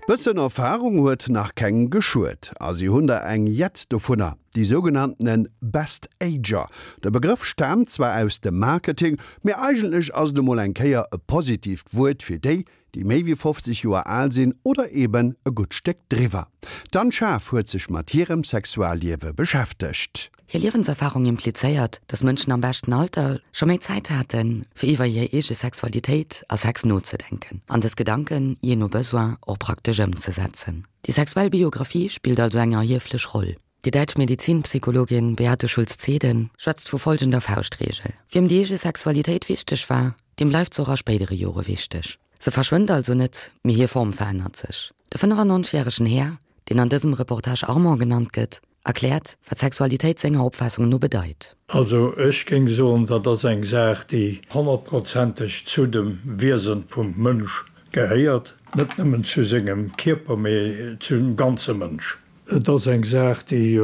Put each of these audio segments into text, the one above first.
Bëssen Erfarung huet nach kengem geschuet. A si hunn der eng jett dovunner, déi sougenanntene Best Ager. De Begrëff staamt zwar aus dem Marketing, mee eigentlech ass et emol eng Kéier e positiivt Wuert fir déi, déi méi wéi 50 Joer al sinn oder eben e gutt Stéck driwwer. D'Anne Schaaf huet sech mat hirem Sexualliewe beschäftegt. Hir Liewenserfarung implizéiert, dass Mënschen am beschten Alter scho méi Zäit haten, fir iwwer hir eege Sexualitéit a Sex nozedenken an dës Gedanken, jee no Besoin, och praktesch ëmzesetzen. Déi sexuell Biographie spillt also eng erhieflech Roll. Déi däitsch Medizinpsychologin Beate Schulz-Zeden schwätzt vu folgender Fauschtreegel, Wiem déi eege Sexualitéit wichteg war, deem bleift se och a spéidere Jore wichteg. Se verschwënnt also net, mee hir Form verännert sech. De 95 järegen Här, deen an dësem Reportage Armand genannt gëtt, erkläert, wat Sexualitéit senger Opfaassung no bedeit. Also ech géing soen, dat ass eng Saach, déi honnertprozenteg zu dem Wiese vum Mënsch gehéiert, net nëmmen zu sengem Kierper, mee zum ganze Mënsch. Et ass eng Saach, déi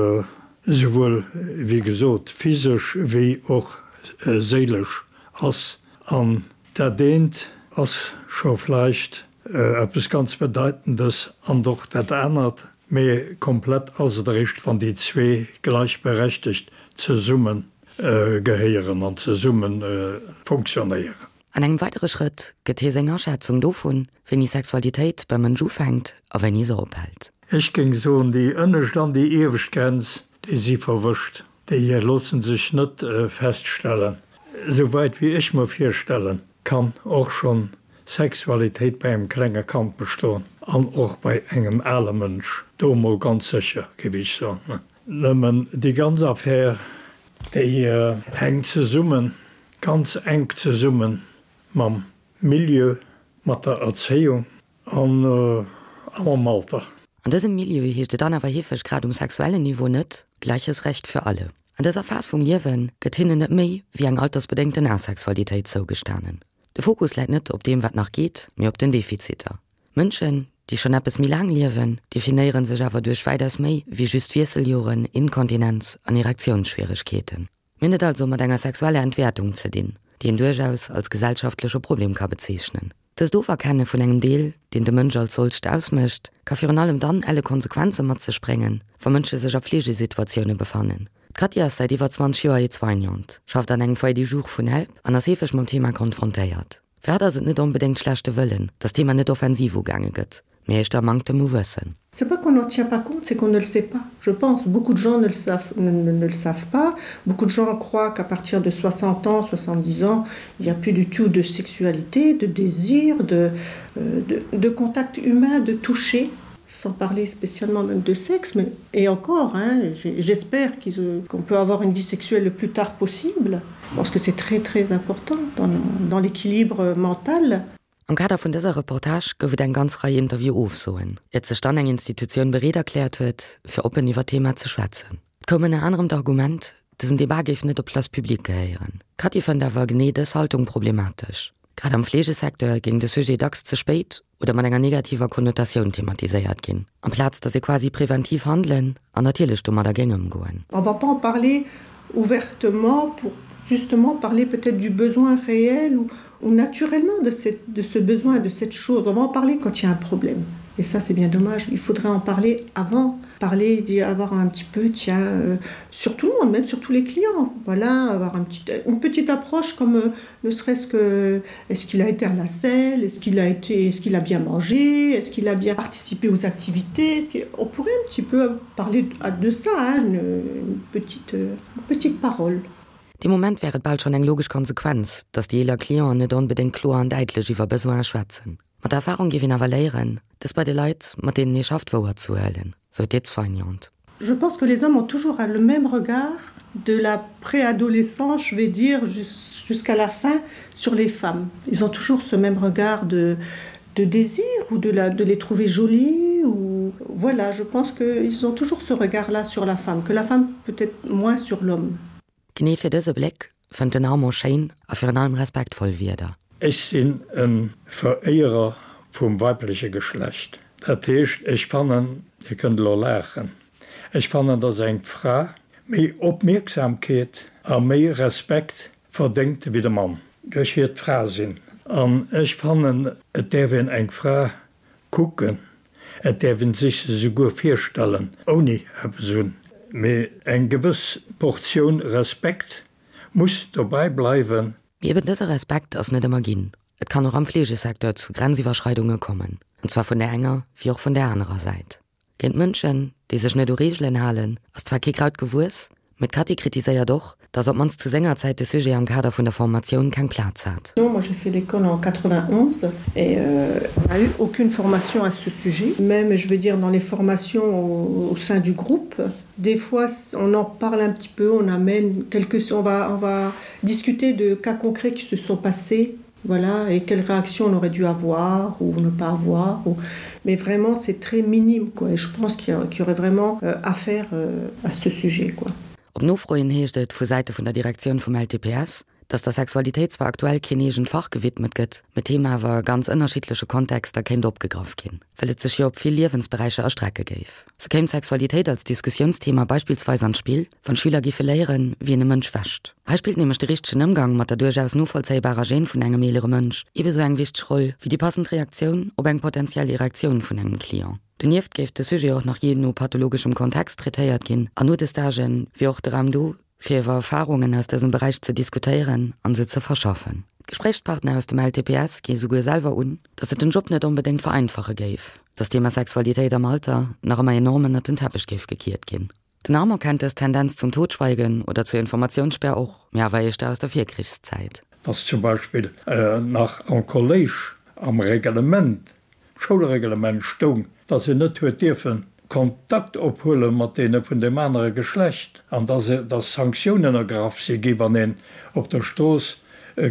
esouwuel, wéi gesot, physesch wéi och séilesch ass. An dat eent ass scho vläicht eppes ganz Bedeitendes an och dat anert. Mee komplett ass et eréischt, wann déi zwee gleichberechtegt zesumme gehéieren an zesumme fonctionnéieren. An engem weidere Schrëtt gëtt hie seng Aschätzung dovun, wéini Sexualitéit beim Mënsch ufänkt a wéini se ophält. Ech géing soen, déi ënnescht an déi iewescht Grenz, déi si verwëscht. Déi loosse sech net feststellen. Souwäit wéi ech mer virstellen kann, och schonn Sexualitéit bei engem klenge Kand bestoen an och bei engem ale Mënsch, do emol ganz sécher, géif ech soen. Nëmmen déi ganz Affär, déi hänkt zesummen, ganz enk zesumme mam Milieu, mat der Erzéiung a mam Alter. An dësem Milieu heescht et dann awer heefeg grad um sexuellen Niveau net, Gleiches Recht für alle. An dëser Phas vum Liewe gëtt hinnen net méi wéi eng altersbedéngten Asexualitéit zougestanen. De Fokus läit net op deem wat nach geet, mee op den Defiziter. Mënschen, déi schonn eppes méi laang liewen, definéiere sech awer duerch wäitaus méi wéi just Wiesseljoren, Inkontinenz an Erektiounsschwieregkeeten. Mir hunn et also mat enger sexueller Entwäertung ze dinn, déi een duerchaus als gesellschaftleche Problem ka bezeechnen. Dëst Oferkenne vun engem Deel, deen de Mënsch als solcht ausmécht, ka virun allem dann elle Konsequenze mat sech bréngen, wa Mënsche sech a Fleegesituatioune befannen. D'Katy ass säit iwwer 20 Joer Aide-soignante, schafft an engem Foyer du jour vun Help an ass heefeg mam Thema konfrontéiert. Fir hatt ass et net onbedéngt schlechte Wëllen, datt d'Thema net offensiv ugaange gëtt, mee éischter Manktem u Wëssen. C'est pas qu'on n'en tient pas compte, c'est qu'on ne le sait pas. Je pense, beaucoup de gens ne le savent, ne, ne, ne le savent pas. Beaucoup de gens croient qu'à partir de 60 ans, 70 ans, il n'y a plus du tout de sexualité, de désir, de, euh, de, de contact humain, de toucher sans parler spécialement même de sexe mais et encore hein, j'espère euh, qu'on qu peut avoir une vie sexuelle le plus tard possible parce que c'est très très important dans, dans l'équilibre mental. Am Kader vun dëser Reportage gouf et eng ganz Rei Interview-Ofsoen, iert sech dann eng Institutioun bereet erkläert huet, fir oppen iwwer d'Thema ze schwätzen. Et koum ënner anerem d'Argument, dësen Debat géif net op d'Place publique gehéieren. D'Cathy fënnt awer genee dës Haltung problematesch. Grad am Fleegesecteur géing de Sujet dacks ze spéit oder mat enger negativer Konnotatioun thematiséiert ginn, amplaz datt ee quasi preventiv handelen an natierlech domadder géing ëmgoen. On va pas en parler ouvertement pour justement parler peut-être du besoin réel ou, ou naturellement de, cette, de ce besoin, de cette chose. On va en parler quand il y a un problème. Et ça, c'est bien dommage. Il faudrait en parler avant, parler, d'y avoir un petit peu, tiens, euh, sur tout le monde, même sur tous les clients. Voilà, avoir un petit, une petite approche comme euh, ne serait-ce que est-ce qu'il a été à la selle, est-ce qu'il a, été, est-ce qu'il a bien mangé, est-ce qu'il a bien participé aux activités. Est-ce on pourrait un petit peu parler de ça, hein, une, une, petite, une petite parole. Dee Moment wär et bal schonn eng logesch Konsequenz, datt déi eeler Clienten net onbedéngt kloer an däitlech iwwer Besoine schwätzen. Mat der Erfarung géif een awer léieren, dës bei de Leit, mat deenen ee schafft, wouerzehuelen, sou d'Aide-soignante. Je pense que les hommes ont toujours le même regard de la préadolescence, je vais dire, jusqu'à la fin sur les femmes. Ils ont toujours ce même regard de, de désir ou de, la, de les trouver jolies ou voilà, je pense qu'ils ont toujours ce regard là sur la femme, que la femme peut-être moins sur l'homme. Genee fir dëse Bléck fënnt den Armand schéin a virun allem respektvoll Wierder. Ech sinn e Veréierer vum weibleche Geschlecht. Dat heescht, ech fannen, Dir kënnt elo laachen, ech fannen, dass eng Fra méi Opmierksamkeet a méi Respekt verdéngt wéi de Mann, duerch hiert Frasinn. An ech fannen, et däerf een eng Fra kucken. Et däerf een sech se souguer virstellen ouni eppes un, mee eng gewëss Portioun Respekt muss dobäi bleiwen. Mee eben dëse Respekt ass net ëmmer ginn. Et kann och am Fleegesecteur zu Grenziwwerschreidunge kommen, an zwar vun där enger wéi och vun där anerer Säit. Géint Mënschen, déi sech net u Reegelen halen, ass zwar kee Kraut gewuess, mee d'Cathy kritiséiert och, datt op d'mannst zu senger Zäit de Sujet am Kader vun der Formatioun keng Plaz hat. Moi j'ai fait l'école en 91 et on n'a eu aucune formation à ce sujet, même je veux dire dans les formations au, au sein du groupe. Des fois on en parle un petit peu, on amène quelques on va, on va discuter de cas concrets qui se sont passés voilà et quelle réaction on aurait dû avoir ou ne pas avoir ou... mais vraiment c'est très minime quoi et je pense qu'il y, qu y aurait vraiment euh, affaire euh, à ce sujet quoi. Op Nofro hin heescht et vu Säite vun der Direktioun vum LTPS, datt der Sexualitéit zwar aktuell keen eegent Fach gewidmet gëtt, mee d'Thema awer a ganz ënnerschiddleche Kontexter kéint opgegraff ginn, well et sech jo op vill Liewensberäicher erstrecke géif. Sou kéim d'Sexualitéit als Diskussiounsthema beispillsweis an d'Spill, wann d'Schüler géife léieren, wéi een e Mënsch wäscht. Hei spillt nämlech de richtegen Ëmgang mat der duerchaus novollzéibarer Gêne vun engem eelere Mënsch eebesou eng wichteg Roll wéi déi passend Reaktioun op eng potentiell Erektioun vun engem Client. Donieft géif de Sujet och nach jee no pathologeschem Kontext traitéiert ginn an no de Stagen wier och de Raum do, fir iwwer Erfarungen aus dësem Beräich ze diskutéieren an se ze verschaffen. D'Gespréichspartner aus dem LTPS gi souguer selwer un, datt et den Job net onbedéngt vereinfache géif, datt d'Thema Sexualitéit am Alter nach ëmmer enorm ënnert den Teppech géif gekiert ginn. Den Armand kennt dës Tendenz zum Totschweigen oder zur Informatiounssperr och, mee awer éischter aus der Virkrichszäit. Dass zum Beispill nach am Kolléisch am Reglement, Schoulreglement stoung, dass een net huet dierfen Kontakt ophuele mat deene vun deem anere Geschlecht an dass dass Sanktiounen ergraff si gi wann een op der Strooss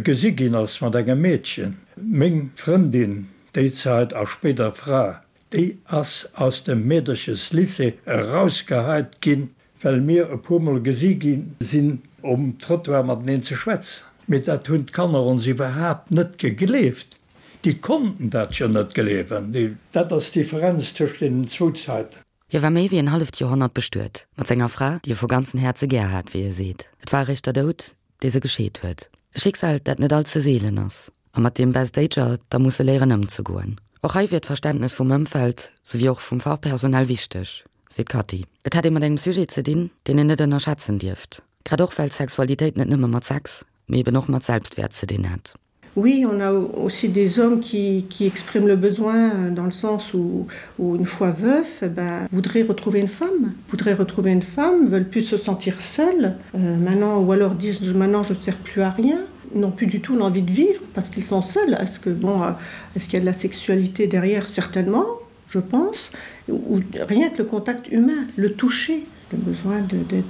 gesi ginn ass mat engem Meedchen. Meng Frëndin déi Zäit a spéider Fra, Déi ass aus dem Meedercheslycée erausgeheit ginn, well mir e puer Mol gesi gi sinn um Trottoir mateneen ze schwätzen. Mee dat hunn d'Kanner ons iwwerhaapt net gegleeft. Déi konnten dat jo net gleewen. Dat ass d'Differenz tëscht deenen zwou Zäiten. Hie war méi wéi en halleft Joerhonnert bestuet mat senger Fra, déi e vu ganzen Häerze gär hat, wéi e seet. Et war eréischt der Doud, dee se gescheet huet. E Schicksal, dat net all ze seelen ass a mat deem Best Ager da musse léieren ëmzegoen. Och hei wier d'Verständnes vum Ëmfeld souwéi och vum Fachpersonal wichteg, seet d'Cathy. Et hätt ee mat engem Sujet ze dinn, deen een net ënnerschätzen dierft, grad och well Sexualitéit net nëmme mat Sex, mee eben och mat Selbstwäert ze dinn hätt. Oui, on a aussi des hommes qui, qui expriment le besoin euh, dans le sens où, où une fois veuf, eh ben, voudraient retrouver une femme, voudraient retrouver une femme, veulent plus se sentir seuls euh, maintenant ou alors disent maintenant je sers plus à rien n'ont plus du tout l'envie de vivre parce qu'ils sont seuls. Est-ce que bon euh, est-ce qu'il y a de la sexualité derrière certainement, je pense, ou rien que le contact humain, le toucher, le besoin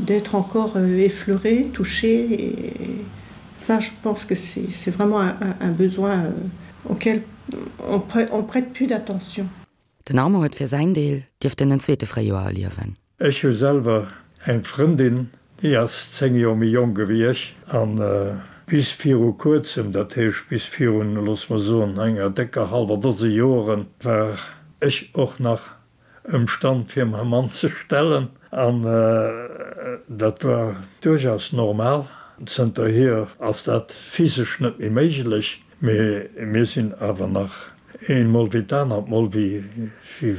d'être encore euh, effleuré, touché et ça je pense que c'est vraiment un, un, un besoin euh, auquel on prête, on prête plus d'attention. Den Armand huet fir säin Deel dierften en zweete Fréijoer erliewen. Ech hu selwer eng Frëndin, déi ass 10 Joer méi jonk ewéi ech, an bis viru kuerzem, dat heescht bis virun, loosse mer soen, enger décker hallwer Dose Joren, war ech och nach ëmstand fir mäi Mann ze stellen, an dat war duerchaus normal. Zënterhier ass dat physesch net méi méiglech, mee mir sinn awer nach een mol wéi d'anert mol, wéi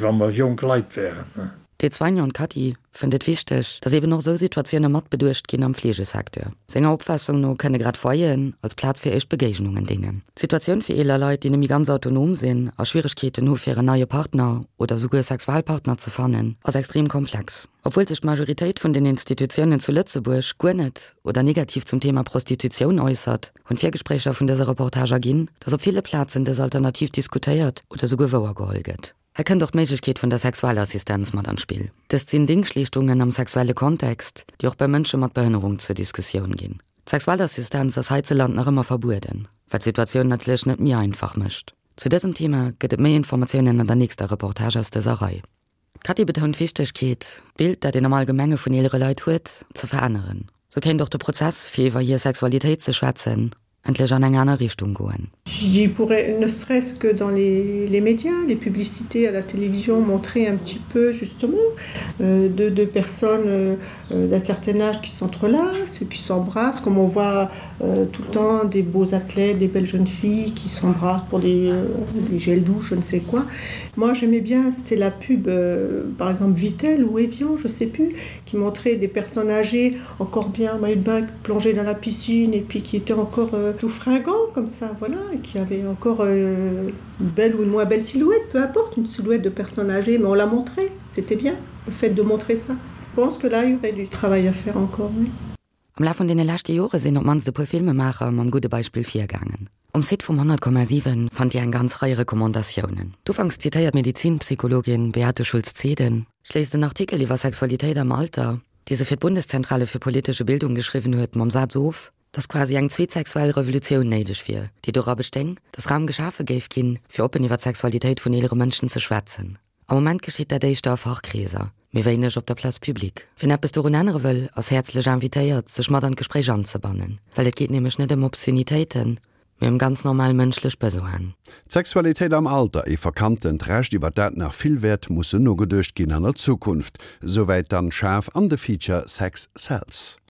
wa mer jonk Leit wären. D'Aide-soignante Cathy fënnt et wichteg, datt eben och esou Situatioune mat beduecht ginn am Fleegesecteur. Senger Opfaassung no kënne grad Foyeren als Plaz fir éischt Begéignungen déngen. D'Situatioun fir eeler Leit, déi net méi ganz autonom sinn a Schwieregkeeten hu fir en neie Partner oder souguer Sexualpartner ze fannen, ass extrem komplex. Obwuel sech d'Majoritéit vun den Institutiounen zu Lëtzebuerg guer net oder negativ zum Thema Prostitutioun äussert, hunn d'Virgespréicher vun dëser Reportage erginn, datt op ville Plazen dës Alternativ diskutéiert oder souguer wouergeholl gëtt. Hei kënnt och d'Méiglechkeet vun der Sexualassistenz mat an d'Spill. Dëst sinn Dingschtleeschtungen am sexuelle Kontext, déi och bei Mënsche mat Behënnerung zur Diskussioun ginn. D'Sexualassistenz ass heizeland nach ëmmer verbueden, wat d'Situatioun natierlech net méi einfach mécht. Zu dësem Thema gëtt et méi Informatiounen an der nächster Reportage aus dëser Rei. D'Cathy betount d'Wichtegkeet, d'Bild, dat een am Allgemenge vun eelere Leit huet, ze veränneren. Sou kéint och de Prozess, fir iwwer hir Sexualitéit ze schwätzen. endlech an eng aner Richtung goen. Je pourrais ne serait-ce que dans les, les médias, les publicités à la télévision montrer un petit peu justement euh, de, de personnes euh, d'un certain âge qui s'entrelacent, qui s'embrassent, comme on voit euh, tout le temps des beaux athlètes, des belles jeunes filles qui s'embrassent pour des, euh, des gels douche, je ne sais quoi. Moi j'aimais bien, c'était la pub euh, par exemple Vitel ou Evian, je sais plus, qui montrait des personnes âgées encore bien maillot de bain plongé dans la piscine et puis qui étaient encore euh, tout fringant comme ça voilà et qui avait encore euh, une belle ou une moins belle silhouette peu importe une silhouette de personnes âgées mais on l'a montré c'était bien le fait de montrer ça je pense que là il y aurait du travail à faire encore oui. Am Laf vun deene leschte Jore sinn op d'mannst e puer Filmemaacher mam gudde Beispill virgaangen. Um Site vum 100,7 fannt Dir eng ganz Rei Recommandatiounen. D'ufanks zitéiert Medizinpsychologin Beate Schulz-Zeden schléisst en Artikel iwwer Sexualitéit am Alter, dee se fir d'Bundeszentrale für politische Bildung geschriwwen huet, mam Saz of, dass quasi eng zweet sexuell Revolutioun néideg wier, déi dora bestéing, dass Raum geschafe géif ginn, fir oppen iwwer d'Sexualitéit vun eelere Mënschen ze schwätzen. Am Moment geschitt dat éischter a Fachkreeser, méi wéineg op der Place publique. Wien eppes dorun ännere wëll, ass häerzlech invitéiert, sech mat an d'Gespréich anzebannen, well et geet nämlech net ëm Obszönitéiten, mee ëm ganz normal mënschlech Besoinen. D'Sexualitéit am Alter, ee verkanntent Recht, iwwer dat nach vill wäert mussen nogeduecht ginn an der Zukunft. Souwäit d'Anne Schaaf an de Feature Sex Sells.